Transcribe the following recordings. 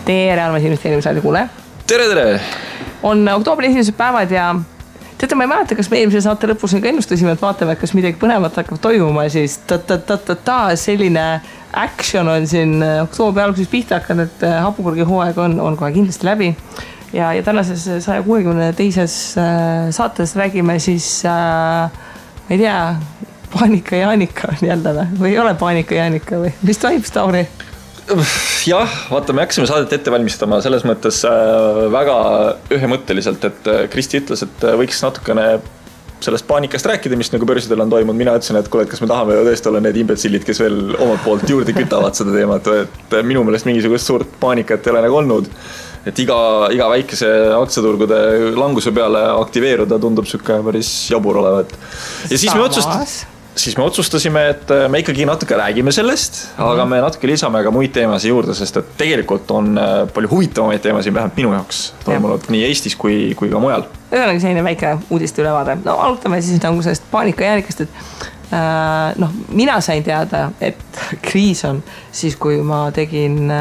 tere, armas investeerimisraadi kuule. Tere! On oktoobri esimesed päevad ja teate, ma ei mäleta, kas me eelmise saate lõpus ka ennustasime, et vaatame, et kas midagi põnevat hakkab toimuma, siis selline action on siin oktoobri alguses pihta hakanud, et hapukurgi hooaeg on kohe kindlasti läbi. Ja tänases 162. saates räägime siis, ma ei tea, paanika Jaanika on jälle või ei ole paanika Jaanika või mis toimub, Tauri? Jah, vaata, me hakkasime saadet ette valmistama selles mõttes väga ühemõtteliselt, et Kristi ütles, et võiks natukene sellest paanikast rääkida, mis nagu börsidel on toimunud. Mina ütlesin, et kuule, et kas me tahame tõesti olla need imbetsillid, kes veel omalt poolt juurde kütavad seda teemat, et minu meelest mingisugust suurt paanikat ei ole nagu olnud. Et iga väikese aktsiaturgude languse peale aktiveeruda tundub sükke päris jabur olevat. Ja siis me otsustasime, et me ikkagi natuke räägime sellest, aga me natuke lisame ka muid teemasid juurde, sest et tegelikult on palju huvitavamaid teemasid vähemalt minu jaoks toimunud nii Eestis kui ka mujal. Ühesõnaga selline väike uudiste ülevaade. No alutame siis nagu sellest paanika jäänikast, et mina sain teada, et kriis on siis, kui ma tegin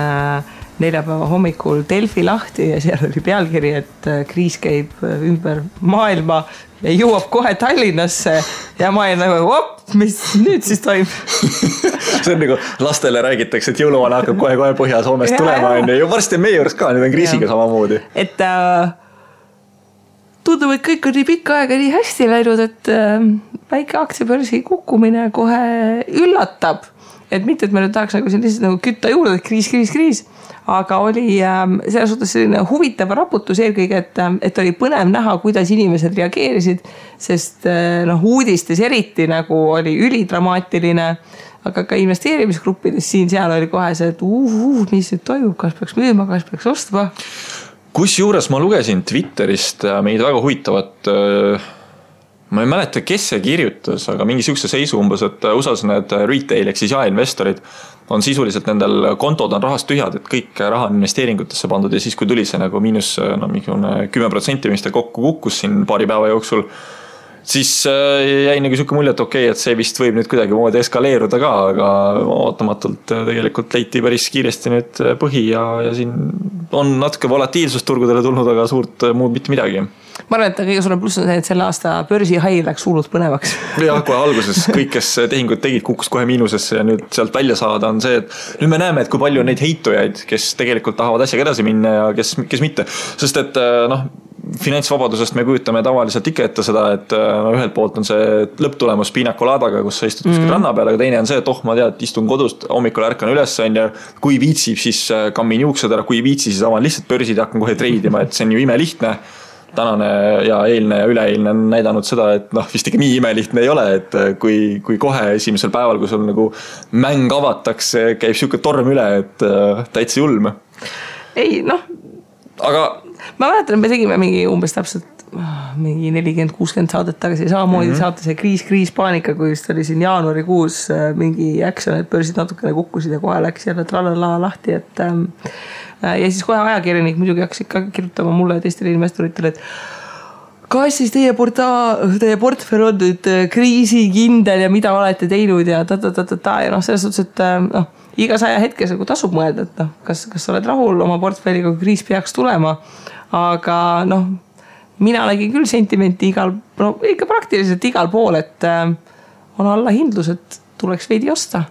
neljapäeva hommikul Delfi lahti ja seal oli pealkiri, et kriis käib ümber maailma ja jõuab kohe Tallinnasse ja ma olin nagu, mis nüüd siis toimub? See on nagu lastele räägitakse, et jõuluvana hakkab kohe Põhja-Soomest tulema ja varsti on meie juures ka, nüüd on kriisiga samamoodi. Et tundub, et kõik on nii pikka aega nii hästi läinud, et väike aktsiabörsi kukkumine kohe üllatab. Et mitte, et me nüüd tahaks nagu lihtsalt nagu kütta juurde, et kriis. Aga oli selles suhtes selline huvitav raputus eelkõige, et oli põnev näha, kuidas inimesed reageerisid, sest uudistes eriti nagu oli ülidramaatiline, aga ka investeerimisgruppides seal oli kohe see, et mis nüüd toimub, kas peaks müüma, kas peaks ostma. Kusjuures ma lugesin Twitterist meid väga huvitavat, ma ei mäleta, kes see kirjutas, aga mingi sihukese seisu umbes, et USA-s need retail ehk siis jaeinvestorid on sisuliselt nendel kontod on rahast tühjad, et kõik raha on investeeringutesse pandud ja siis kui tuli see nagu miinus 10%, mis ta kokku kukkus siin paari päeva jooksul, siis jäi nagu sihuke mulje, et okei, et see vist võib nüüd kuidagi moodi eskaleeruda ka, aga ootamatult tegelikult leiti päris kiiresti nüüd põhi ja siin on natuke volatiilsust turgudele tulnud, aga suurt muud mitte midagi. Ma arvan, et kõige suurem pluss on see, et selle aasta börsi hai läks hullult põnevaks. Ja kohe alguses kõik, kes tehingud tegid, kukkus kohe miinusesse ja nüüd sealt välja saada on see, et nüüd me näeme, et kui palju on neid heitujaid, kes tegelikult tahavad asjaga edasi minna ja kes mitte. Sest et finantsvabadusest me kujutame tavaliselt ikka ette seda, et ühelt poolt on see lõpptulemus piinakolaadaga, kus sa istud kuskil ranna peal, aga teine on see, et ma tead, istun kodust, hommikul ärkan üles ja kui viitsib, siis kammin juuksed ära, kui viitsi, siis avan lihtsalt börsid ja hakkan kohe treidima, et see on ju imelihtne. Tänane ja eilne ja üleeilne on näidanud seda, et vist ikka nii imelihtne ei ole, et kui kohe esimesel päeval, kui sul nagu mäng avatakse, käib siuke torm üle, et täitsa julm. Ei, aga ma mäletan, me tegime mingi umbes täpselt mingi 40-60 saadet tagasi samamoodi saate see kriis paanika, kui just oli siin jaanuarikuus mingi action, et börsid natukene kukkusid ja kohe läks jälle tralala lahti, et ja siis kohe ajakirjanik muidugi hakkas ikka kirjutama mulle ja teistele investoritele, et kas siis teie portfell on nüüd kriisikindel ja mida olete teinud ja ja selles suhtes, et iga 100 hetkes tasub mõelda, et kas sa oled rahul oma portfelliga, kui kriis peaks tulema, aga mina nägin küll sentimenti ikka praktiliselt igal pool, et on allahindlus, et tuleks veidi osta.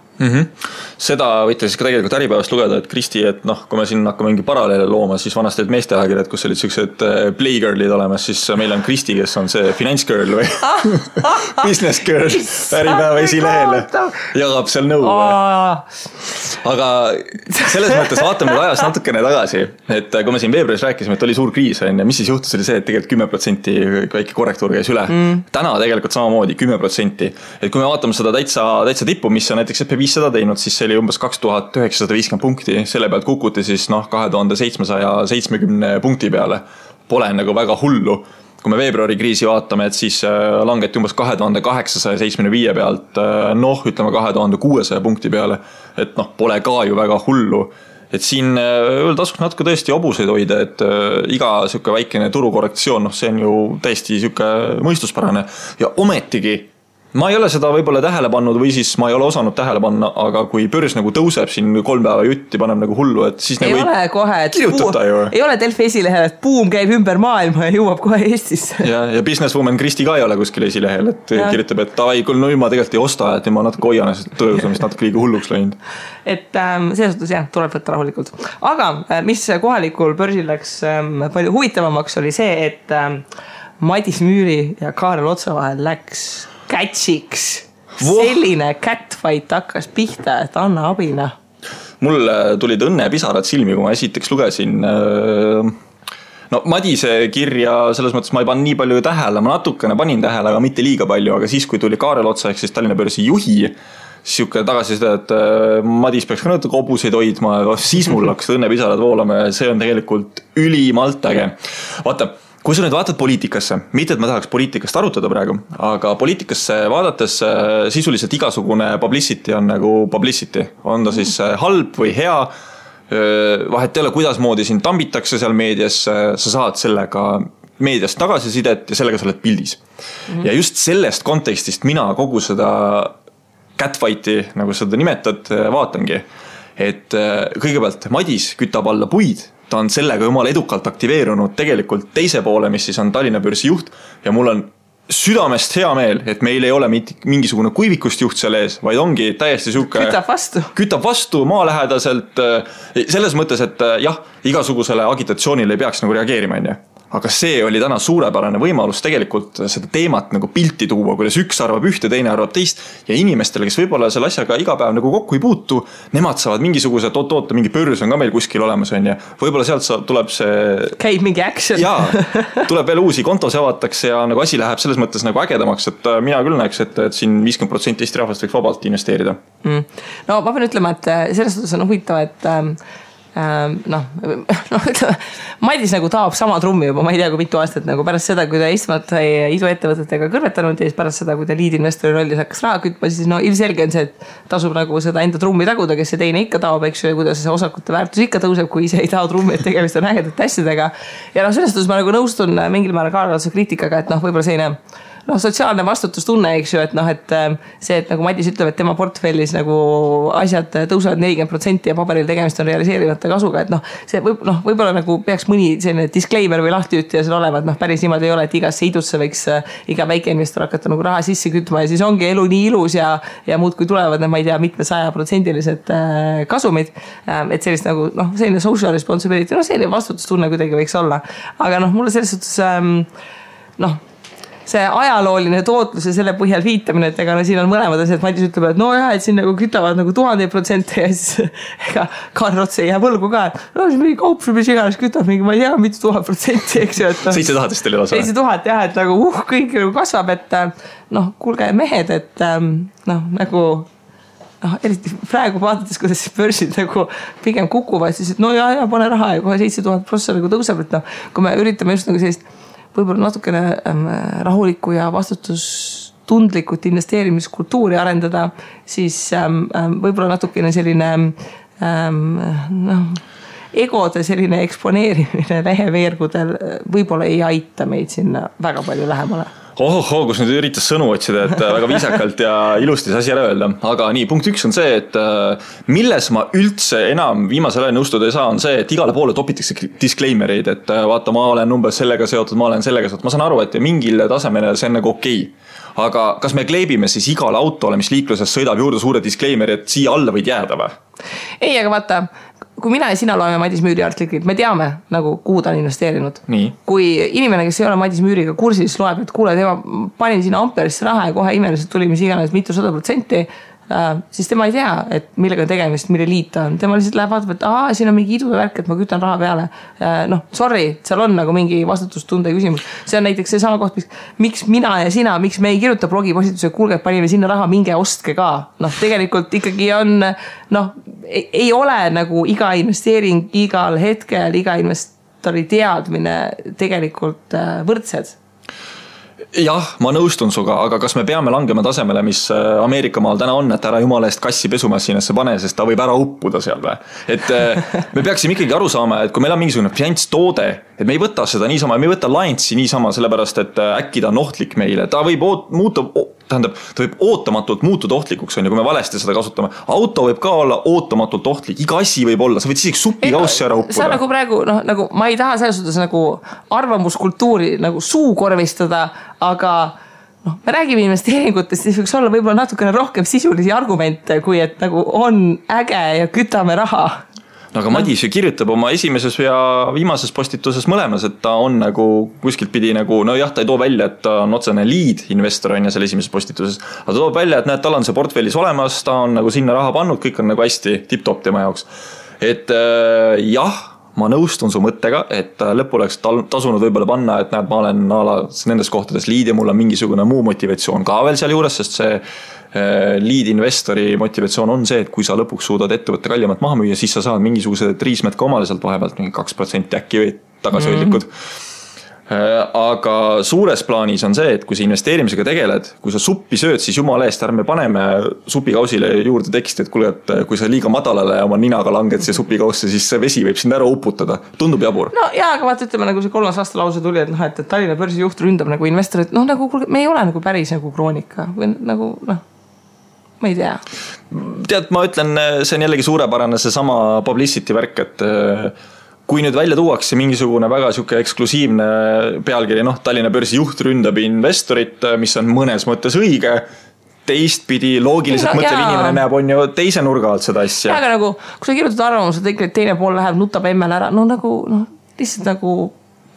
Seda võite siis ka tegelikult äripäevast lugeda, et Kristi, et kui me siin hakkame mingi paralleele looma, siis vanasti olid meesteajakirjad, kus olid sellised playgirlid olemas, siis meil on Kristi, kes on see finance girl või business girl äripäeva esilehele jagab seal nõu. Aga selles mõttes vaatame nüüd ajas natukene tagasi, et kui me siin veebruaris rääkisime, et oli suur kriis, ja mis siis juhtus, oli see, et tegelikult 10% väike korrektuur käis üle. Täna tegelikult samamoodi 10%. Et kui me vaatame seda täitsa tippu, mis on näiteks SP500 teinud, siis see oli umbes 2950 punkti, selle pealt kukuti siis 2770 punkti peale. Pole nagu väga hullu. Kui me veebruari kriisi vaatame, et siis langeti umbes 2875 pealt, ütleme 2600 punkti peale, et pole ka ju väga hullu. Et siin tasuks natuke tõesti obuseid hoida, et iga siuke väikene turukorrektsioon, see on ju täiesti siuke mõistuspärane ja ometigi ma ei ole seda võib-olla tähele pannud või siis ma ei ole osanud tähele panna, aga kui börs nagu tõuseb siin 3 päeva jutti, paneb nagu hullu, et siis ei nagu ole kohe, et ei ole Delfi esilehel, et buum käib ümber maailma ja jõuab kohe Eestisse. Ja businesswoman Kristi ka ei ole kuskil esilehel, et kirjutab, et ai, küll no ma tegelikult ei osta, et ma natuke hoian tõusamist natuke liiga hulluks läinud. Et selles suhtes jah, tuleb võtta rahulikult. Aga mis kohalikul börsil läks palju huvitavamaks oli see, et Madis Müüri ja Kaarel Otsa vahel läks catchiks. Selline catfight hakkas pihta, et anna abina. Mul tulid õnnepisarad silmi, kui ma esiteks lugesin no Madise kirja, selles mõttes ma ei pannud nii palju tähele, ma natukene panin tähele, aga mitte liiga palju, aga siis, kui tuli Kaarel Otsa ehk siis Tallinna börsi juhi, siuke tagasisida, et Madis peaks ka natuke hobuseid hoidma, siis mul hakkas õnnepisarad voolama ja see on tegelikult ülimalt äge. Vaata, kui sa nüüd vaatad poliitikasse, mitte et ma tahaks poliitikast arutada praegu, aga poliitikasse vaadates sisuliselt igasugune publicity on nagu publicity. On ta siis halb või hea, vahet ei ole, kuidas moodi sind tambitakse seal meedias, sa saad sellega meediast tagasisidet ja sellega sa oled pildis. Ja just sellest kontekstist mina kogu seda catfighti, nagu seda nimetad, vaatangi. Et kõigepealt Madis kütab alla puid, ta on sellega jumala edukalt aktiveerunud tegelikult teise poole, mis siis on Tallinna börsi juht ja mul on südamest hea meel, et meil ei ole mingisugune kuivikust juht seal ees, vaid ongi täiesti siuke kütab vastu maalähedaselt selles mõttes, et jah, igasugusele agitatsioonile ei peaks nagu reageerima, aga see oli täna suurepärane võimalus tegelikult seda teemat nagu pilti tuua, kuidas üks arvab ühte, teine arvab teist ja inimestele, kes võib-olla selle asjaga iga päev nagu kokku ei puutu, nemad saavad mingisuguse oota, mingi börs on ka meil kuskil olemas on ja võib-olla sealt tuleb see käib mingi action tuleb veel uusi kontos avatakse ja nagu asi läheb selles mõttes nagu ägedamaks, et mina küll näeks, et siin 50% Eesti rahvast võiks vabalt investeerida. No ma pean ütlema, et selles suhtes on huvitav, et Madis nagu taab sama trummi juba, ma ei tea kui mitu aastat nagu pärast seda, kui ta istmat sai iduettevõtetega kõrvetanud ja siis pärast seda, kui ta liidinvestori rollis hakkas raha kütma, siis no ilmselge on see, et tasub nagu seda enda trummi taguda, kes see teine ikka taob, eks ju, ja kuidas see osakute väärtus ikka tõuseb, kui ise ei tao trummi, et tegemist on ägedate asjadega. Ja selles suhtes ma nagu nõustun mingil määral Kaarel Otsa kriitikaga, et võib-olla selline sotsiaalne vastutustunne, eks ju, et et see, et nagu Madis ütleb, et tema portfellis nagu asjad tõusevad 40% ja paberil tegemist on realiseerimata kasuga, et see võib-olla nagu peaks mõni selline disclaimer või lahtiütja seal olema, et päris niimoodi ei ole, et igasse idusse võiks iga väikeinvestor hakata nagu raha sisse kütma ja siis ongi elu nii ilus ja muud kui tulevad, ma ei tea, mitme 100%-lised kasumid, et sellist nagu, selline social responsibility, selline vastutustunne kuidagi võiks olla, aga mulle selles suhtes see ajalooline tootlus ja selle põhjal viitamine, et ega siin on mõlemad asjad, Madis ütleb, et et siin nagu kütavad nagu 1000% ja siis ega Kaarel Ots ei jää võlgu ka, et siis mingi kaup, mis iganes kütab mingi, ma ei tea, mitu 1000%, eks ju, et 7000 teil elas. 7000 jah, et nagu kõik kasvab, et kuulge mehed, et nagu eriti praegu vaadates, kuidas börsid nagu pigem kukuvad, siis et pane raha ja kohe 7000% nagu tõuseb, et kui me üritame just nagu sellist võib-olla natukene rahulikku ja vastutustundlikult investeerimiskultuuri arendada, siis võib-olla natukene selline egode selline eksponeerimine leheveergudel võib-olla ei aita meid sinna väga palju lähemale. Kus nüüd üritas sõnu otsida, et väga viisakalt ja ilusti see asi ära öelda. Aga nii, punkt 1 on see, et milles ma üldse enam viimasel ajal nõustuda ei saa, on see, et igale poole topitakse disclaimereid, et vaata, ma olen umbes sellega seotud, ma olen sellega seotud. Ma saan aru, et mingil tasemel see on nagu okei. Aga kas me kleebime siis igale autole, mis liikluses sõidab juurde suure disclaimeri, et siia alla võid jääda või? Ei, aga vaata, kui mina ja sina loeme Madis Müüri artiklit, me teame, nagu, kuhu ta on investeerinud. Nii. Kui inimene, kes ei ole Madis Müüriga kursis, loeb, et kuule, tema panin sinna Amperisse raha ja kohe imeliselt tuli mis iganes mitu 100%, siis tema ei tea, et millega tegemist, mille liit ta on. Tema lihtsalt läheb vaatab, et siin on mingi idude värk, et ma kütan raha peale. Sorry, seal on nagu mingi vastutustunde küsimus. See on näiteks see sama koht, miks mina ja sina, miks me ei kirjuta blogipostituse, kuulge, panime sinna raha, minge ostke ka. Tegelikult ikkagi on, ei ole nagu iga investeering, igal hetkel, iga investori teadmine tegelikult võrdsed. Jah, ma nõustun suga, aga kas me peame langema tasemele, mis Ameerika maal täna on, et ära jumala eest kassi pesumasinasse pane, sest ta võib ära uppuda seal või? Et me peaksime ikkagi aru saama, et kui meil on mingisugune finantstoode, et me ei võta seda niisama, me ei võta Lions'i niisama, sellepärast et äkki ta on ohtlik meile, ta võib ta võib ootamatult muutuda ohtlikuks, kui me valesti seda kasutame. Auto võib ka olla ootamatult ohtlik, iga asi võib olla, sa võid isegi supikaussi ära uppuda. See on nagu praegu, nagu ma ei taha selles suhtes nagu arvamuskultuuri nagu suukorvistada, aga me räägime investeeringutest, siis võiks olla võib-olla natukene rohkem sisulisi argumente, kui et nagu on äge ja kütame raha. No aga Madis ju kirjutab oma esimeses ja viimases postituses mõlemas, et ta on nagu kuskilt pidi nagu, no jah, ta ei too välja, et ta on otsene lead investor on ja selle esimeses postituses, aga ta toob välja, et näed, tal on see portfellis olemas, ta on nagu sinna raha pannud, kõik on nagu hästi tipp-top tema jaoks. Et jah, ma nõustun su mõttega, et lõppu oleks tasunud võib-olla panna, et näed, ma olen nendes kohtades lead ja mul on mingisugune muu motivatsioon ka veel seal juures, sest see lead investori motivatsioon on see, et kui sa lõpuks suudad ettevõtte kallimat maha müüa, siis sa saad mingisugused riismed ka omale sealt vahepealt, 2% äkki või tagasihoidlikud. Aga suures plaanis on see, et kui sa investeerimisega tegeled, kui sa suppi sööd, siis jumala eest ärme paneme supikausile juurde teksti, et kuule, et kui sa liiga madalale oma ninaga langed siia supikausse, siis see vesi võib sind ära uputada. Tundub jabur. No jaa, aga vaata, ütleme nagu see 3. aasta lause tuli, et Tallinna börsi juht ründab nagu investorid, nagu me ei ole nagu päris nagu Kroonika või nagu ma ei tea. Tead, ma ütlen, see on jällegi suurepärane see sama publicity värk, et kui nüüd välja tuuakse mingisugune väga siuke eksklusiivne pealkiri, Tallinna börsi juht ründab investorit, mis on mõnes mõttes õige, teistpidi loogiliselt mõtlev inimene näeb on ju teise nurga alt seda asja. Ja, aga nagu, kui sa kirjutad arvamused, et teine pool läheb, nutab emmel ära, lihtsalt nagu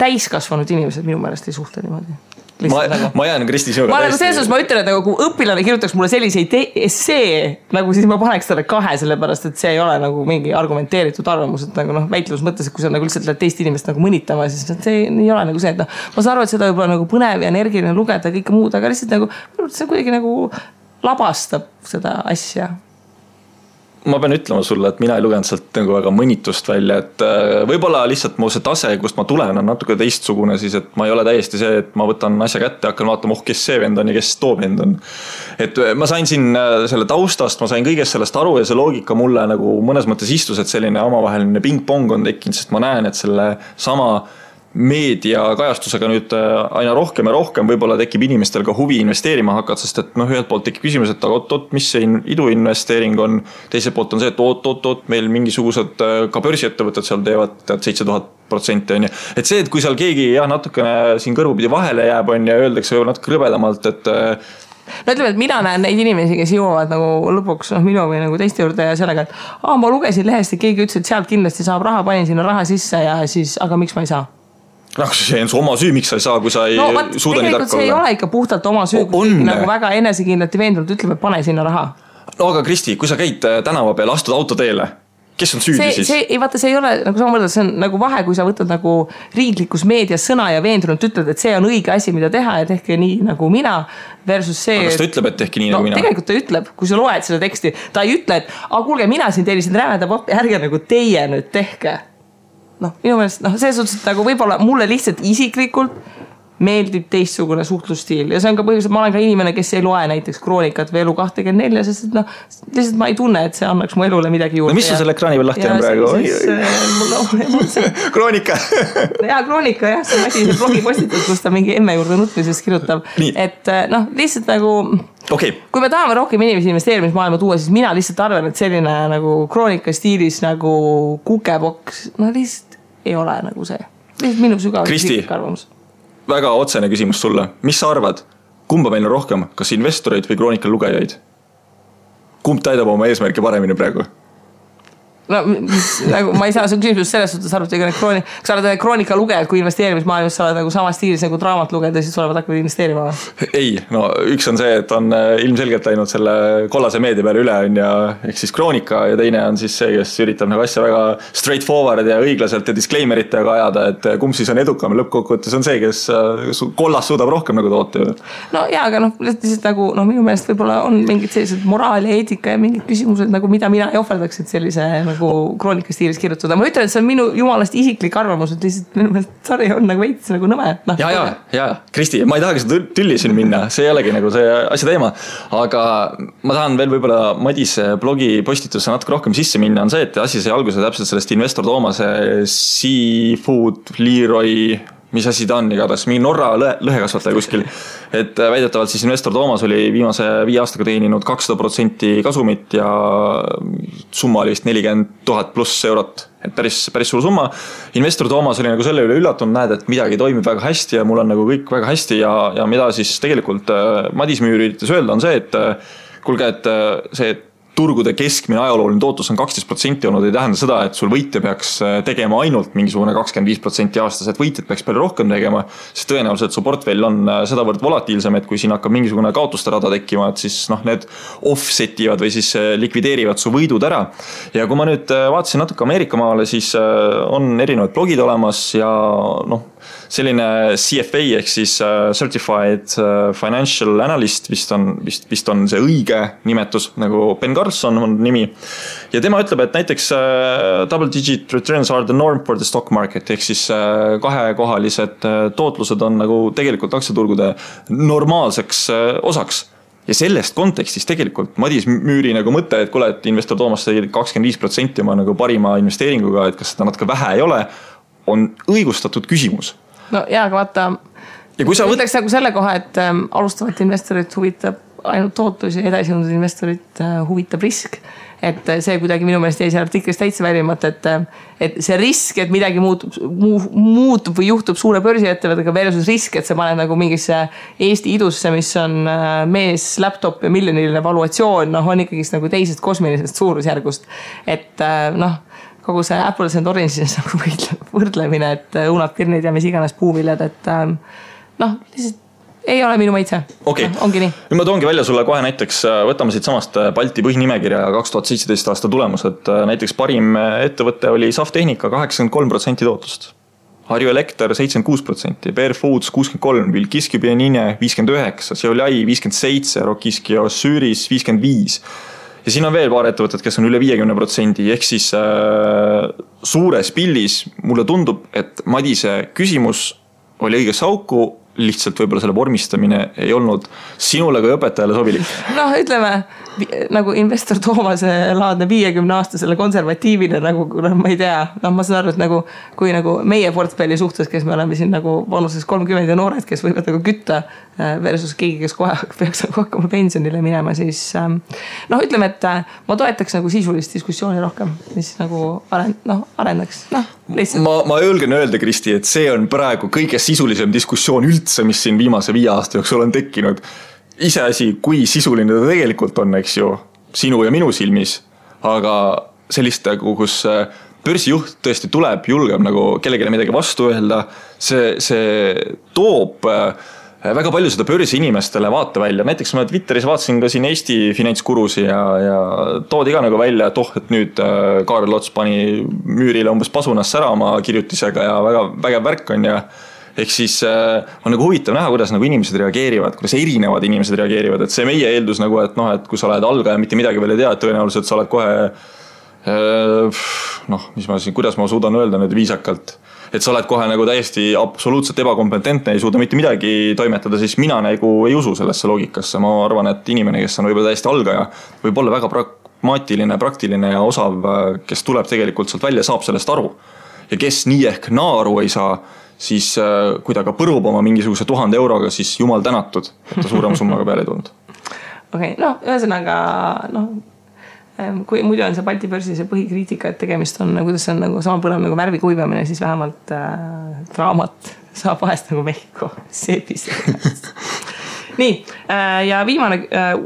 täiskasvanud inimesed minu meelest ei suhtle niimoodi. Ma jään Kristi sinuga täiesti. Selles ma ütlen, et kui õpilane kirjutaks mulle selliseid essee, nagu siis ma paneks talle 2, sellepärast, et see ei ole nagu mingi argumenteeritud arvamus, et nagu väitlus mõttes, et kui sa nagu lihtsalt lähed teist inimest nagu mõnitama, siis see ei ole nagu see, et ma saan aru, et seda võib-olla nagu põnev ja energiline lugeda ja kõike muud, aga lihtsalt nagu see kuidagi nagu labastab seda asja. Ma pean ütlema sulle, et mina ei lugenud sealt nagu väga mõnitust välja, et võib-olla lihtsalt mu see tase, kust ma tulen, on natuke teistsugune siis, et ma ei ole täiesti see, et ma võtan asja kätte ja hakkan vaatama, kes see vend on ja kes too vend on. Et ma sain siin selle taustast, ma sain kõigest sellest aru ja see loogika mulle nagu mõnes mõttes istus, et selline omavaheline ping-pong on tekkinud, sest ma näen, et selle sama meedia kajastusega nüüd aina rohkem ja rohkem võib-olla tekib inimestel ka huvi investeerima hakata, sest et ühelt poolt tekib küsimus, et oot, mis see iduinvesteering on, teiselt poolt on see, et oot, meil mingisugused ka börsiettevõtted seal teevad 7000% on ju. Et see, et kui seal keegi natukene siin kõrvupidi vahele jääb on ja öeldakse natuke rõbedamalt, et no ütleme, et mina näen neid inimesi, kes jõuavad nagu lõpuks minu või nagu teiste juurde ja sellega, et ma lugesin lehest ja keegi ütles, et sealt kindlasti saab raha, panin sinna raha sisse ja siis, aga miks ma ei saa? See on su oma süü, miks sa ei saa, kui sa ei suuda nii tark olla. See ei ole ikka puhtalt oma süü, kui nagu väga enesekindlalt ja veendunult ütleb, et pane sinna raha. No aga Kristi, kui sa käid tänava peale, astud autoteele, kes on süüdi siis? Vaata, see ei ole, nagu sa mõtled, see on nagu vahe, kui sa võtad nagu riiklikus meedias sõna ja veendunult ütled, et see on õige asi, mida teha ja tehke nii nagu mina versus see... Aga kas ta ütleb, et tehke nii nagu mina? Tegelikult ta ütleb, kui sa loed seda teksti, ta ei ütle, et kuulge, mina siin tellisin rämeda pappi, ärge nagu teie nüüd tehke. Minu meelest, see suhtes, et nagu võib-olla mulle lihtsalt isiklikult meeldib teistsugune suhtlusstiil ja see on ka põhjus, et ma olen ka inimene, kes ei loe näiteks Kroonikat või Elu24, sest et lihtsalt ma ei tunne, et see annaks mu elule midagi juurde. No mis sa selle ekraani veel lahti on praegu? Kroonika. Jaa, Kroonika, jah, see on asi, see blogipostitus, kus ta mingi emme juurde nutmisest kirjutab. Et lihtsalt nagu okay. Kui me tahame rohkem inimesi investeerimismaailma tuua, siis mina lihtsalt arvan, et selline nagu Kroonika stiilis nagu kukeboks, lihtsalt ei ole nagu see. Lihtsalt minu sügavalt isiklik arvamus. Väga otsene küsimus sulle. Mis sa arvad? Kumba meil on rohkem? Kas investoreid või Kroonika lugejaid? Kumb täidab oma eesmärki paremini praegu? No, nagu, ma ei saa su küsimus selles suhtes arvata, kui sa oled Kroonika lugejad, kui investeerimismaailmas sa oled nagu sama stiilis nagu draamat lugeda, siis olevad hakkavad investeerima. Ei, üks on see, et on ilmselgelt läinud selle kollase meedia peale üle on ja ehk siis Kroonika ja teine on siis see, kes üritab nagu asja väga straightforward ja õiglaselt ja disclaimeritega ajada, et kumb siis on edukam lõppkokkuvõttes on see, kes kollas suudab rohkem nagu toota. No jaa, aga lihtsalt nagu minu meelest võib-olla on mingid sellised moraal ja eetika ja mingid küsimused, nagu mida mina ei ohverdaks, et sellise nagu nagu kroonikastiilis kirjutada. Ma ütlen, et see on minu jumalast isiklik arvamus, et lihtsalt minu meelest sari on nagu veits nagu nõme. Ja, Kristi, ma ei tahagi seda tülli siin minna, see ei olegi nagu see asja teema, aga ma tahan veel võib-olla Madise blogi postitusse natuke rohkem sisse minna, on see, et asi sai alguse täpselt sellest Investor Toomase Seafood Leroy, mis asi ta on igatahes, mingi Norra lõhekasvataja kuskil. Et väidetavalt siis Investor Toomas oli viimase 5 aastaga teeninud 200% kasumit ja summa oli vist 40 000 pluss eurot. Et päris suur summa. Investor Toomas oli nagu selle üle üllatunud, näed, et midagi toimib väga hästi ja mul on nagu kõik väga hästi ja mida siis tegelikult Madis Müür üritas öelda on see, et kuulge, et see turgude keskmine ajalooline tootlus on 12% olnud, ei tähenda seda, et sul võitja peaks tegema ainult mingisugune 25% aastas, et võitjad peaks palju rohkem tegema, sest tõenäoliselt su portfell on sedavõrd volatiilsem, et kui siin hakkab mingisugune kaotuste rada tekkima, et siis need offsetivad või siis likvideerivad su võidud ära. Ja kui ma nüüd vaatasin natuke Ameerika maale, siis on erinevad blogid olemas ja selline CFA ehk siis Certified Financial Analyst vist on see õige nimetus, nagu Ben Carlson on nimi. Ja tema ütleb, et näiteks double digit returns are the norm for the stock market, ehk siis kahekohalised tootlused on nagu tegelikult aktsiaturgude normaalseks osaks. Ja sellest kontekstis tegelikult Madis Müüri nagu mõte, et kuule, et Investor Toomas sai 25% oma nagu parima investeeringuga, et kas seda natuke vähe ei ole, on õigustatud küsimus. No jaa, aga vaata, ütleks nagu selle koha, et alustavat investorit huvitab ainult tootlus ja edasijõudnud investorit huvitab risk. Et see kuidagi minu meelest jäi seal artiklist täitsa välimata, et see risk, et midagi muutub või juhtub suure börsiettevõttega versus risk, et sa paned nagu mingisse Eesti idusse, mis on mees, laptop ja miljoniline valuatsioon, on ikkagi nagu teisest kosmilisest suurusjärgust. Et kogu see Apples and Oranges nagu võrdlemine, et õunad, pirnid ja mis iganes puuviljad, et lihtsalt ei ole minu maitse. Okay. Ongi nii. Ma toongi välja sulle kohe näiteks, võtame siit samast Balti põhinimekirja 2017 aasta tulemus, et näiteks parim ettevõte oli Saftehnika 83% tootlust. Harju Elekter 76%, Bear Foods 63%, Vilkiski Pienine 59%, Seolai 57%, Rokiski Osüüris 55%. Ja siin on veel paar ettevõtted, kes on üle 50%, ehk siis suures pillis mulle tundub, et Madise küsimus oli õigesse auku, lihtsalt võib-olla selle vormistamine ei olnud sinule kui õpetajale sobilik. Ütleme, nagu Investor Toomase laadne 50-aastasele konservatiivile, nagu ma ei tea, ma saan aru, et nagu, kui nagu meie portfelli suhtes, kes me oleme siin nagu vanuses 30 ja noored, kes võivad nagu kütta versus keegi, kes kohe peaks nagu hakkama pensionile minema, siis ütleme, et ma toetaks nagu sisulist diskussiooni rohkem, mis nagu arendaks. Ma julgen öelda, Kristi, et see on praegu kõige sisulisem diskussioon üldse, mis siin viimase 5 aasta jooksul on tekkinud. Iseasi, kui sisuline ta tegelikult on, eks ju, sinu ja minu silmis, aga sellist, kus börsijuht tõesti tuleb, julgeb nagu kellegile midagi vastu öelda, see toob väga palju seda börsi inimestele vaata välja. Näiteks ma Twitteris vaatasin ka siin Eesti finantskurusi ja toodi ka nagu välja, et et nüüd Kaarel Ots pani Müürile umbes pasunas sära oma kirjutisega ja väga vägev värk on ja ehk siis on nagu huvitav näha, kuidas nagu inimesed reageerivad, kuidas erinevad inimesed reageerivad, et see meie eeldus nagu, et et kui sa oled algaja, mitte midagi veel ei tea, et tõenäoliselt sa oled kohe kuidas ma suudan öelda nüüd viisakalt, et sa oled kohe nagu täiesti absoluutselt ebakompetentne, ei suuda mitte midagi toimetada, siis mina nagu ei usu sellesse loogikasse. Ma arvan, et inimene, kes on võib-olla täiesti algaja, võib olla väga pragmaatiline, praktiline ja osav, kes tuleb tegelikult sealt välja, saab sellest aru. Ja kes nii ehk naaru ei saa, siis kui ta ka põrub oma mingisuguse 1000 euroga, siis jumal tänatud, et ta suurema summaga peale ei tulnud. Okei, ühesõnaga, kui muidu on see Balti börsi see põhikriitika, et tegemist on, kuidas see on nagu sama põnev nagu värvi kuivamine, siis vähemalt draamat saab vahest nagu Mehhiko seepis. Nii, ja viimane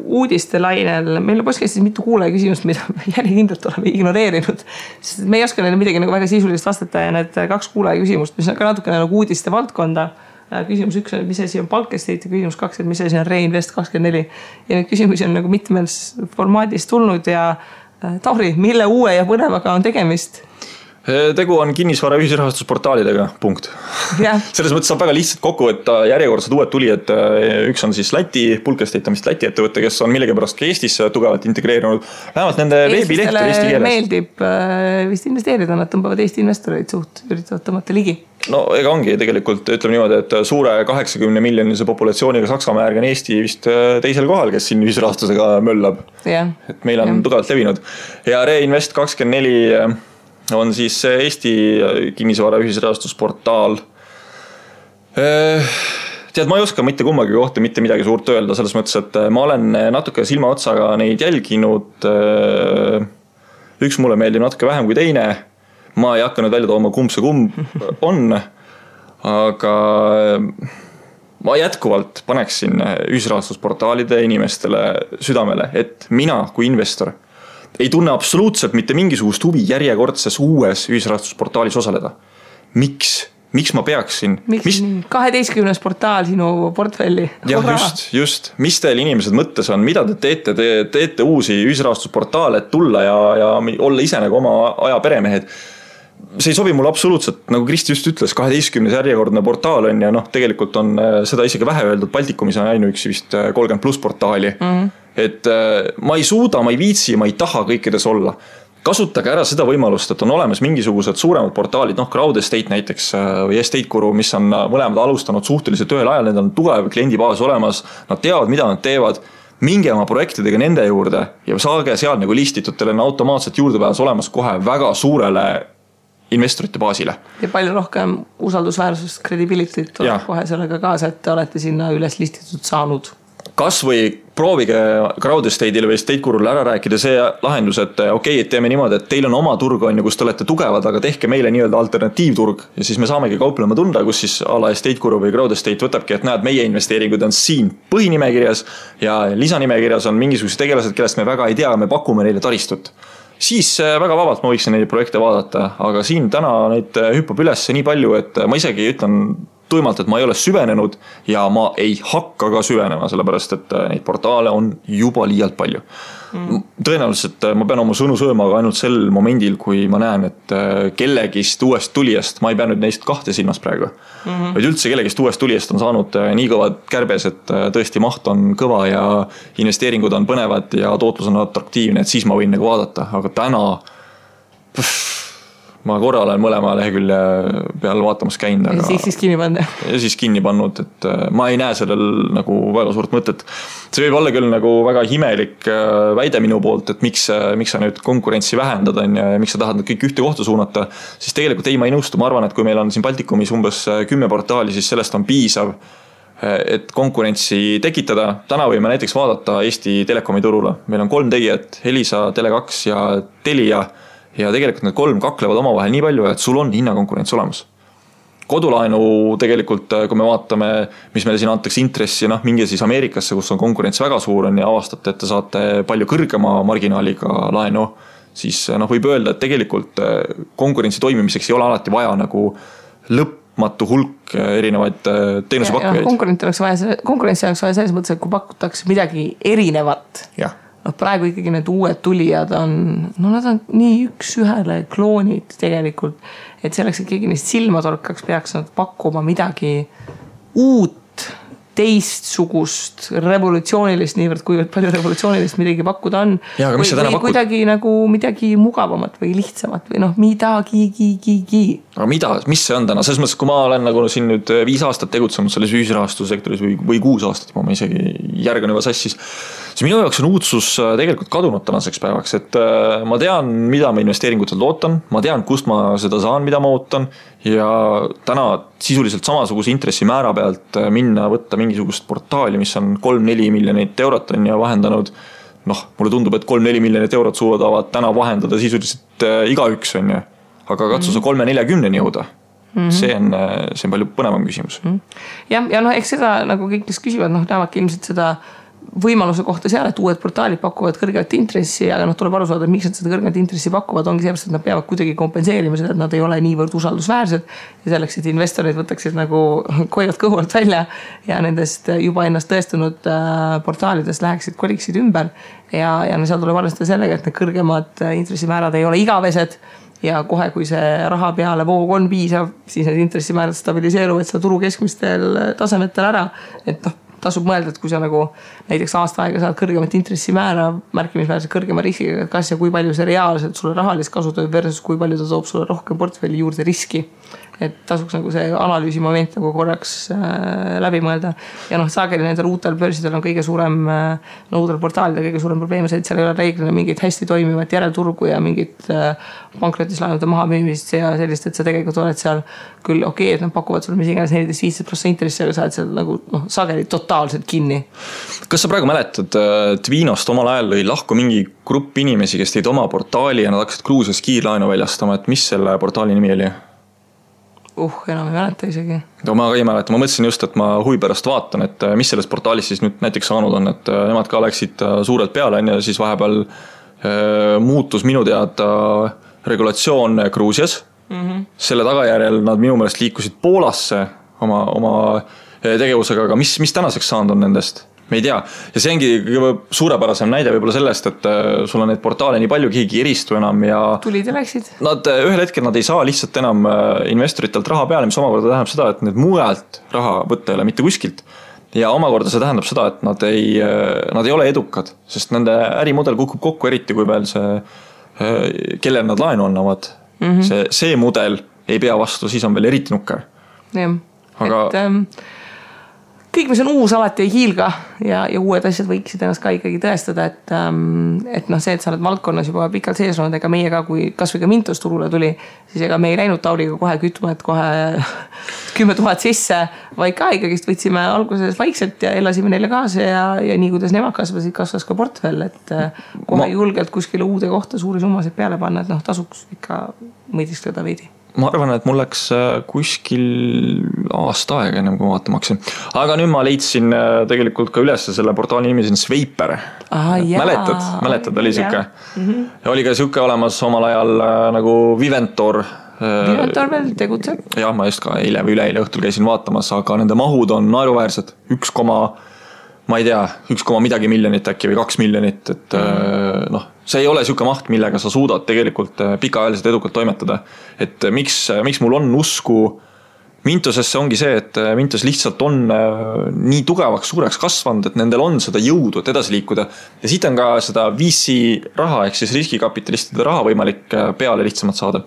uudiste lainel, meil on podcastis mitu kuulaja küsimust, mida me järjekindlalt oleme ignoreerinud, sest me ei oska neile midagi nagu väga sisulist vastata ja need 2 kuulaja küsimust, mis on ka natuke nagu uudiste valdkonda. Küsimus 1 on, mis asi on Palkestate ja küsimus 2, et mis asi on Reinvest24 ja need küsimusi on nagu mitmes formaadis tulnud ja Tauri, mille uue ja põnevaga on tegemist? Tegu on kinnisvara ühisrahastusportaalidega, punkt. Selles mõttes saab väga lihtsalt kokku võtta järjekordsed uued tulijad. Üks on siis Läti, Pulkestate on vist Läti ettevõte, kes on millegipärast ka Eestis tugevalt integreerunud. Vähemalt nende veebileht on eesti keeles. Meeldib vist investeerida, nad tõmbavad Eesti investoreid üritavad tõmmata ligi. No ega ongi tegelikult, ütleme niimoodi, et suure 80 miljonilise populatsiooniga Saksamaa järgi on Eesti vist teisel kohal, kes siin ühisrahastusega möllab. Et meil on tugevalt levinud. Ja Reinvest 24 on siis Eesti kinnisvara ühisrahastusportaal. Tead, ma ei oska mitte kummagi kohta mitte midagi suurt öelda, selles mõttes, et ma olen natuke silmaotsaga neid jälginud. Üks mulle meeldib natuke vähem kui teine. Ma ei hakanud välja tooma kumb see kumb on, aga ma jätkuvalt paneksin ühisrahastusportaalide inimestele südamele, et mina kui investor ei tunne absoluutselt mitte mingisugust huvi järjekordses uues ühisrahastusportaalis osaleda. Miks ma peaksin? Miks 12 portaal sinu portfelli? Jah, just. Mis teil inimesed mõttes on? Mida te teete uusi ühisrahastusportaale, et tulla ja olla ise nagu oma aja peremehed? See ei sobi mulle absoluutselt, nagu Kristi just ütles, 12 järjekordne portaal on ja tegelikult on seda isegi vähe öeldud, Baltikumis on ainuüksi vist 30+ portaali. Et ma ei suuda, ma ei viitsi, ma ei taha kõikides olla. Kasutage ära seda võimalust, et on olemas mingisugused suuremad portaalid, Crowd Estate näiteks või Estate Guru, mis on mõlemad alustanud suhteliselt ühel ajal, need on tugev kliendibaas olemas, nad teavad, mida nad teevad, minge oma projektidega nende juurde ja saage seal nagu listitud, teil on automaatselt juurdepääs olemas kohe väga suurele investorite baasile. Ja palju rohkem usaldusväärsust, credibility't tuleb kohe sellega kaasa, et te olete sinna üles listitud saanud. Kas või proovige Crowd Estate'ile või Estate Gurule ära rääkida see lahendus, et okei, et teeme niimoodi, et teil on oma turg, kus te olete tugevad, aga tehke meile nii-öelda alternatiivturg ja siis me saamegi kauplema tunda, kus siis ala Estate Guru või Crowd Estate võtabki, et näed, meie investeeringud on siin põhinimekirjas ja lisanimekirjas on mingisugused tegelased, kellest me väga ei tea, me pakume neile taristut. Siis väga vabalt ma võiksin neid projekte vaadata, aga siin täna neid hüppab üles nii palju, et ma isegi ütlen tuimalt, et ma ei ole süvenenud ja ma ei hakka ka süvenema, sellepärast, et neid portaale on juba liialt palju. Tõenäoliselt ma pean oma sõnu sööma aga ainult sel momendil, kui ma näen, et kellegist uuest tulijast, ma ei pea nüüd neist kahte silmas praegu, vaid üldse kellegist uuest tulijast on saanud nii kõvad kärbes, et tõesti maht on kõva ja investeeringud on põnevad ja tootlus on atraktiivne, et siis ma võin nagu vaadata, aga täna ma korra olen mõlema lehekülje peal vaatamas käinud. Ja siis kinni pannud. Ja siis kinni pannud, et ma ei näe sellel nagu väga suurt mõtet. See võib olla küll nagu väga himelik väide minu poolt, et miks sa nüüd konkurentsi vähendada ja miks sa tahad kõik ühte kohta suunata, siis tegelikult ei, ma ei nõustu. Ma arvan, et kui meil on siin Baltikumis umbes 10 portaali, siis sellest on piisav, et konkurentsi tekitada. Täna võime näiteks vaadata Eesti Telekomi turule. Meil on 3 tegijat, Elisa, Tele2 ja Telia. Ja tegelikult need 3 kaklevad omavahel nii palju, et sul on hinnakonkurents olemas. Kodulaenu tegelikult, kui me vaatame, mis meile siin antakse intressi, minge siis Ameerikasse, kus on konkurents väga suur on ja avastate, et te saate palju kõrgema marginaaliga laenu, siis võib öelda, et tegelikult konkurentsi toimimiseks ei ole alati vaja nagu lõpmatu hulk erinevaid teenusepakkujaid. Konkurentsi oleks vaja selles mõttes, et kui pakutakse midagi erinevat. Jah. Praegu ikkagi need uued tulijad on, nad on nii üks ühele kloonid tegelikult, et selleks, et keegi neist silma torkaks, peaks nad pakkuma midagi uut, teistsugust, revolutsioonilist, niivõrd kuivõrd palju revolutsioonilist midagi pakkuda on. Ja, või kuidagi nagu midagi mugavamat või lihtsamat või midagi. Aga mis see on täna? Selles mõttes, kui ma olen nagu siin nüüd 5 aastat tegutsenud selles ühisrahastussektoris või 6 aastat, ma isegi järgan juba sassis, siis minu jaoks on uudsus tegelikult kadunud tänaseks päevaks, et ma tean, mida ma investeeringutelt ootan, ma tean, kust ma seda saan, mida ma ootan ja täna sisuliselt samasuguse intressimäära pealt minna võtta mingisugust portaali, mis on 3-4 miljonit eurot on ja vahendanud, mulle tundub, et 3-4 miljonit eurot suudavad täna vahendada sisuliselt igaüks on ja, aga katsu sa 3-40 jõuda. See on palju põnevam küsimus. Ja eks seda nagu kõik, kes küsivad, näevadki ilmselt seda võimaluse kohta seal, et uued portaalid pakuvad kõrget intressi, aga tuleb aru saada, miks nad seda kõrget intressi pakuvad, ongi sellepärast, et nad peavad kuidagi kompenseerima seda, et nad ei ole niivõrd usaldusväärsed ja selleks, et investorid võtaksid nagu koivad kõhult välja ja nendest juba ennast tõestunud portaalidest läheksid, koliksid ümber ja seal tuleb arvestada sellega, et need kõrgemad intressimäärad ei ole igavesed ja kohe, kui see raha peale voog on piisav, siis need intressimäärad stabiliseeruvad seal turu keskmistel tasemetel ära, et tasub mõelda, et kui sa nagu näiteks aasta aega saad kõrgemat intressimäära märkimisväärselt kõrgema riskiga, kas ja kui palju see reaalselt sulle rahalist kasu toob versus kui palju ta toob sulle rohkem portfelli juurde riski. Et tasuks nagu see analüüsi moment nagu korraks läbi mõelda. Ja sageli nendel uutel börsidel on kõige suurem, uutel portaalidel kõige suurem probleem see, et seal ei ole reeglina mingit hästi toimivat järelturgu ja mingit pankrotislaenude maha müümist ja sellist, et sa tegelikult oled seal küll okei, et nad pakuvad sulle mis iganes 14-15% intressi, aga sa oled seal nagu sageli totaalselt kinni. Kas sa praegu mäletad, Tvinost omal ajal lõi lahku mingi grupp inimesi, kes teid oma portaali ja nad hakkasid Gruusias kiirlaenu väljastama, et mis selle portaali nimi oli? Enam ei mäleta isegi. Ma ka ei mäleta, ma mõtlesin just, et ma huvi pärast vaatan, et mis sellest portaalis siis nüüd näiteks saanud on, et nemad ka läksid suurelt peale ja siis vahepeal muutus minu teada regulatsioon Gruusias. Selle tagajärjel nad minu meelest liikusid Poolasse oma tegevusega, aga mis tänaseks saanud on nendest? Me ei tea. Ja see ongi suurepärasem näide võib-olla sellest, et sul on neid portaale nii palju, keegi eristu enam ja tulid ja läksid. Nad ühel hetkel nad ei saa lihtsalt enam investoritelt raha peale, mis omakorda tähendab seda, et need mujalt raha võtta ei ole mitte kuskilt. Ja omakorda see tähendab seda, et nad ei ole edukad, sest nende ärimudel kukub kokku eriti, kui veel see, kellel nad laenu annavad. See mudel ei pea vastu, siis on veel eriti nukker. Jah, aga kõik, mis on uus, alati ei hiilga ja uued asjad võiksid ennast ka ikkagi tõestada, et see, et sa oled valdkonnas juba pikalt sees olnud, ega meie ka, kui kas või ka Mintos turule tuli, siis ega me ei läinud Tauliga kohe kütma, et kohe 10 000 sisse, vaid ka ikkagist võtsime alguses vaikselt ja elasime neile kaasa ja nii, kuidas nemad kasvasid, kasvas ka portfell, et kohe julgelt kuskile uude kohta suuri summasid peale panna, et tasuks ikka mõidistada veidi. Ma arvan, et mul läks kuskil aasta aega ennem, kui ma vaatama hakkasin. Aga nüüd ma leidsin tegelikult ka üles selle portaali nimi siin Sveiper. Mäletad, oli siuke. Ja oli ka siuke olemas omal ajal nagu Viventor. Viventor veel tegutseb. Ja, ma just ka eile või üleeile õhtul käisin vaatamas, aga nende mahud on naeruväärsed. 1 midagi miljonit äkki või 2 miljonit, et see ei ole siuke maht, millega sa suudad tegelikult pikaajaliselt edukalt toimetada. Et miks mul on usku Mintosesse ongi see, et Mintos lihtsalt on nii tugevaks suureks kasvanud, et nendel on seda jõudu, et edasi liikuda. Ja siit on ka seda VC raha, ehk siis riskikapitalistide raha võimalik peale lihtsamalt saada.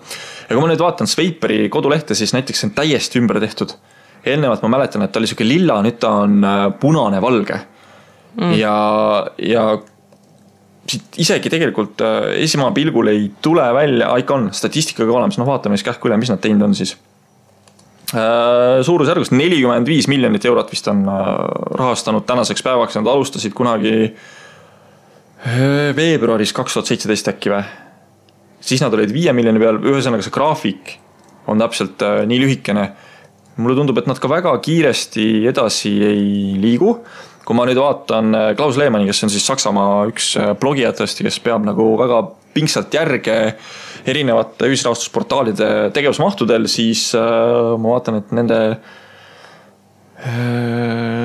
Ja kui ma nüüd vaatan Sveiperi kodulehte, siis näiteks on täiesti ümber tehtud. Eelnevalt ma mäletan, et ta oli siuke lilla, nüüd ta on punane valge. Ja isegi tegelikult esimene pilgul ei tule välja, ikka on statistikaga olemas, vaatame siis kähku üle, mis nad teinud on siis. Suurusjärgus 45 miljonit eurot vist on rahastanud tänaseks päevaks, nad alustasid kunagi veebruaris 2017 äkki või. Siis nad olid 5 miljoni peal, ühesõnaga see graafik on täpselt nii lühikene. Mulle tundub, et nad ka väga kiiresti edasi ei liigu. Kui ma nüüd vaatan Klaus Lehmanni, kes on siis Saksamaa üks blogijatest, kes peab nagu väga pingsalt järge erinevate ühisrahastusportaalide tegevusmahtudel, siis ma vaatan, et nende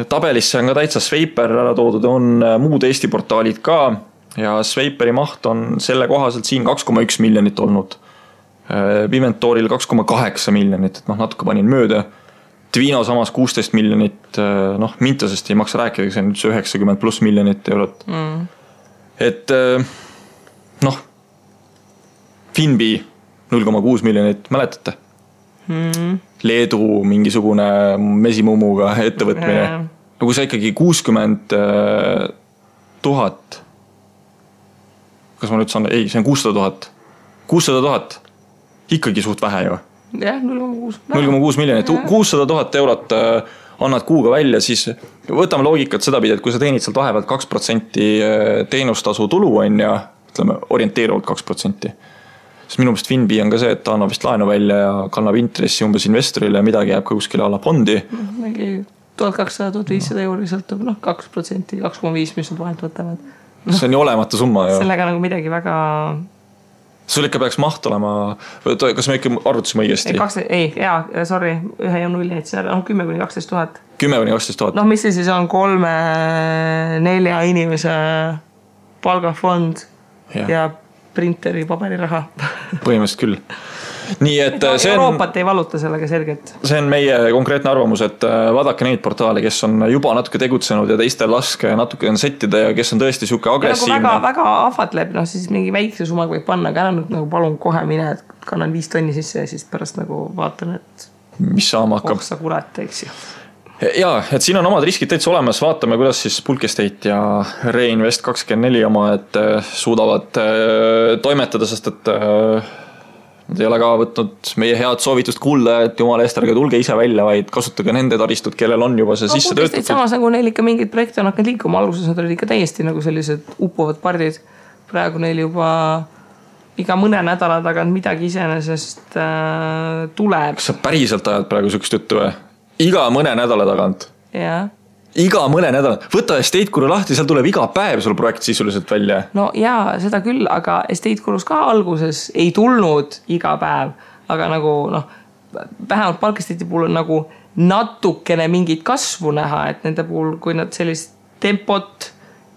tabelisse on ka täitsa Sveiper ära toodud, on muud Eesti portaalid ka ja Sveiperi maht on selle kohaselt siin 2,1 miljonit olnud. Viventoril 2,8 miljonit, et natuke panin mööda. Tvino samas 16 miljonit, Mintosest ei maksa rääkida, see on 90+ miljonit eurot. Et Finbi 0,6 miljonit, mäletate? Leedu mingisugune mesimumuga ettevõtmine. Kui sa ikkagi 60 000, kas ma nüüd saan, ei, see on 600 000, ikkagi suht vähe ju. Jah, 0,6 miljonit, 600 000 eurot annad kuuga välja, siis võtame loogikat seda pidi, et kui sa teenid sealt vahepealt 2% teenustasu tulu on ja ütleme orienteeruvalt 2%. Siis minu meelest Finbi on ka see, et ta annab vist laenu välja ja kannab intressi umbes investorile ja midagi jääb ka kuskile alla fondi. Mingi 1200-1500 euri sõltub 2%, 2,5, mis nad vahelt võtavad. See on ju olematu summa. Sellega nagu midagi väga... Sul ikka peaks maht olema, kas me ikka arvutasime õigesti? Sorry, 1 ja 0, 10-12 000. 10-12 000. Mis see siis on 3-4 inimese palgafond ja printeri paberiraha. põhimõtteliselt küll. Nii et see Euroopat ei valuta sellega selgelt. See on meie konkreetne arvamus, et vaadake neid portaale, kes on juba natuke tegutsenud ja teistel laske natuke on settida ja kes on tõesti siuke agressiivne. Väga ahvatleb, siis mingi väikse summaga võib panna, aga nüüd nagu palun kohe mine, et kannan 5 tonni sisse ja siis pärast nagu vaatan, et mis saama hakkab. Sa kurat, eks ju. Jaa, et siin on omad riskid täitsa olemas, vaatame, kuidas siis Bulk Estate ja Reinvest24 oma, et suudavad toimetada, sest et nad ei ole ka võtnud meie head soovitust kuulda, et jumala eest ärge tulge ise välja, vaid kasutage nende taristut, kellel on juba see sisse töötatud. Samas nagu neil ikka mingid projekte on hakanud liikuma, alguses nad olid ikka täiesti nagu sellised uppuvad pardid. Praegu neil juba iga mõne nädala tagant midagi iseenesest tuleb. Kas sa päriselt ajad praegu sükst juttu või? Iga mõne nädala tagant. Jaa. Iga mõne nädala. Võta Estate Guru lahti, seal tuleb iga päev sul projekt sisuliselt välja. No jaa, seda küll, aga Estate Gurus ka alguses ei tulnud iga päev. Aga nagu vähemalt Bulk Estate'i puhul on nagu natukene mingit kasvu näha, et nende puhul, kui nad sellist tempot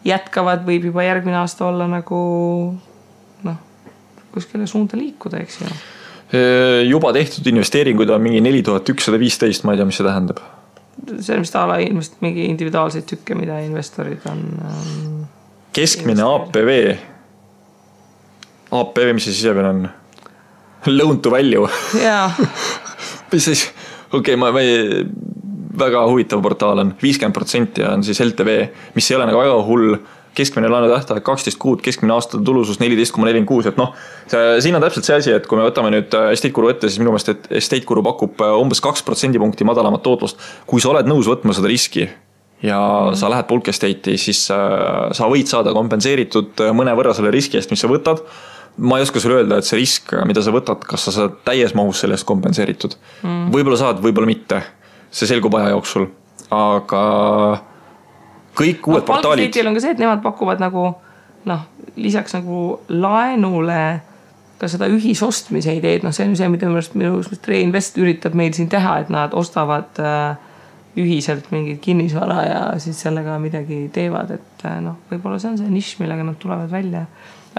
jätkavad, võib juba järgmine aasta olla nagu kuskile suunda liikuda, eks ju. Juba tehtud investeeringuid on mingi 4115, ma ei tea, mis see tähendab. See on vist ala mingi individuaalseid tükke, mida investorid on keskmine APV. APV, mis see sisepeal on? Loan to value. Jaa. Mis siis? Okei, väga huvitav portaal on 50% on siis LTV, mis ei ole nagu väga hull. Keskmine laenu tähtaeg 12 kuud, keskmine aastate tulusus 14,46, et siin on täpselt see asi, et kui me võtame nüüd Estate Guru ette, siis minu meelest, et Estate Guru pakub umbes 2% punkti madalamat tootlust. Kui sa oled nõus võtma seda riski ja sa lähed Bulk Estate'i, siis sa võid saada kompenseeritud mõne võrra selle riski eest, mis sa võtad. Ma ei oska sulle öelda, et see risk, mida sa võtad, kas sa saad täies mahus sellest kompenseeritud. Võib-olla saad, võib-olla mitte. See selgub aja jooksul. Aga kõik uued portaalid. Bulk on ka see, et nemad pakuvad nagu, lisaks nagu laenule ka seda ühisostmise ideed. See on see, mida minu Reinvest üritab meil siin teha, et nad ostavad ühiselt mingid kinnisvara ja siis sellega midagi teevad. Et võib-olla see on see nišš, millega nad tulevad välja.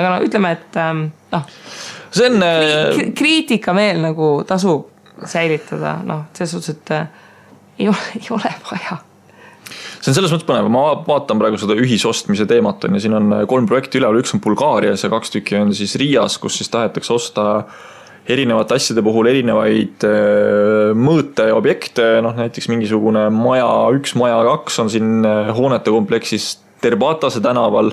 Aga ütleme, et see on kriitika meel nagu tasub säilitada. Selles suhtes, et ei ole vaja. See on selles mõttes põnev, ma vaatan praegu seda ühisostmise teemat ja siin on 3 projekti üleval, üks on Bulgaarias ja 2 tükki on siis Riias, kus siis tahetakse osta erinevate asjade puhul erinevaid mõõte ja objekte, näiteks mingisugune maja 1, maja 2 on siin hoonete kompleksis Terbatase tänaval,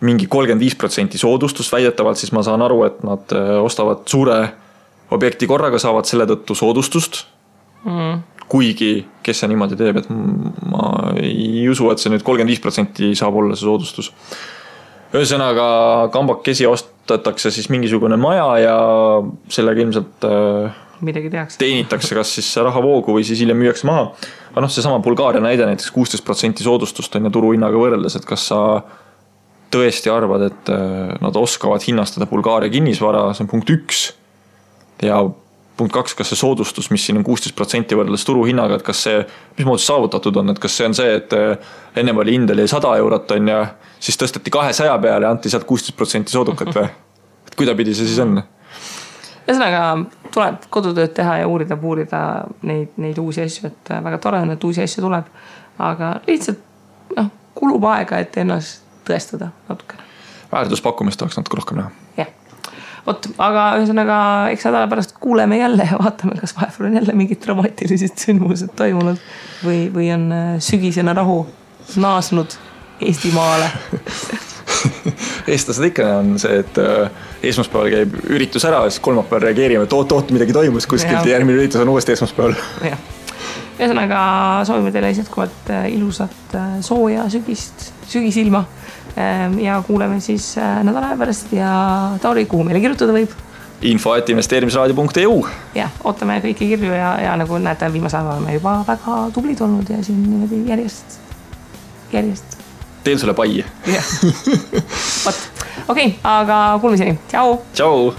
mingi 35% soodustust väidetavalt, siis ma saan aru, et nad ostavad suure objekti korraga, saavad selle tõttu soodustust. Kuigi, kes see niimoodi teeb, et ma ei usu, et see nüüd 35% saab olla see soodustus. Ühesõnaga, kambakesi ostatakse siis mingisugune maja ja sellega ilmselt teenitakse kas siis rahavoogu või siis hiljem müüakse maha. Aga see sama Bulgaaria näide näiteks 16% soodustust on ja turuhinnaga võrreldes, et kas sa tõesti arvad, et nad oskavad hinnastada Bulgaaria kinnisvara, see on punkt 1 ja punkt 2, kas see soodustus, mis siin on 16% võrreldes turuhinnaga, et kas see, mis moodi saavutatud on, et kas see on see, et enne oli hind oli 100 eurot on ja siis tõsteti 200 peale ja anti sealt 16% soodukat või? Et kuidapidi see siis on? Ühesõnaga tuleb kodutööd teha ja uurida neid uusi asju, et väga tore on, et uusi asju tuleb, aga lihtsalt kulub aega, et ennast tõestada natukene. Väärtuspakkumist oleks natuke rohkem näha. Jah. Aga ühesõnaga, eks nädala pärast kuuleme jälle ja vaatame, kas vahepeal on jälle mingid dramaatilised sündmused toimunud või on sügisena rahu naasnud Eestimaale. Eestlased ikka on see, et esmaspäeval käib üritus ära ja siis kolmapäeval reageerime, et oot, midagi toimus kuskilt ja järgmine üritus on uuesti esmaspäeval. Ühesõnaga soovime teile jätkuvalt ilusat sooja sügisilma ja kuuleme siis nädala pärast ja Tauri, kuhu meile kirjutada võib? info@investeerimisraadio.eu Jah, ootame kõiki kirju ja nagu näete, viimase ajal oleme juba väga tublid olnud ja siin niimoodi järjest. Teen sulle pai. Okei, aga kuulmiseni. Tšau! Tšau!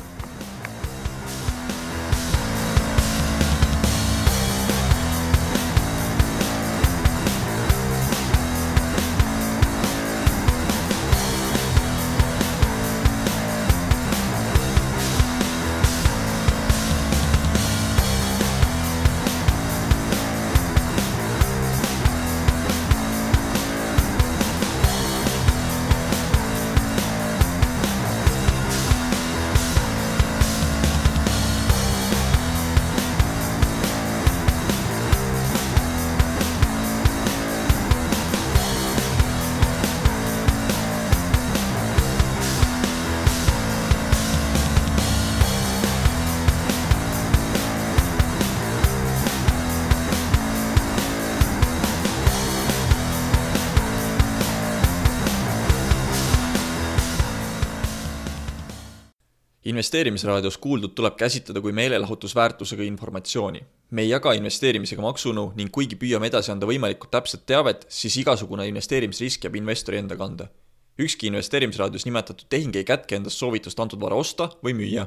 Investeerimisraadios kuuldud tuleb käsitleda kui meelelahutusväärtusega informatsiooni. Me ei jaga investeerimisega maksunõu ning kuigi püüame edasi anda võimalikult täpset teavet, siis igasugune investeerimisrisk jääb investori enda kanda. Ükski investeerimisraadios nimetatud tehing ei kätke endast soovitust antud vara osta või müüa.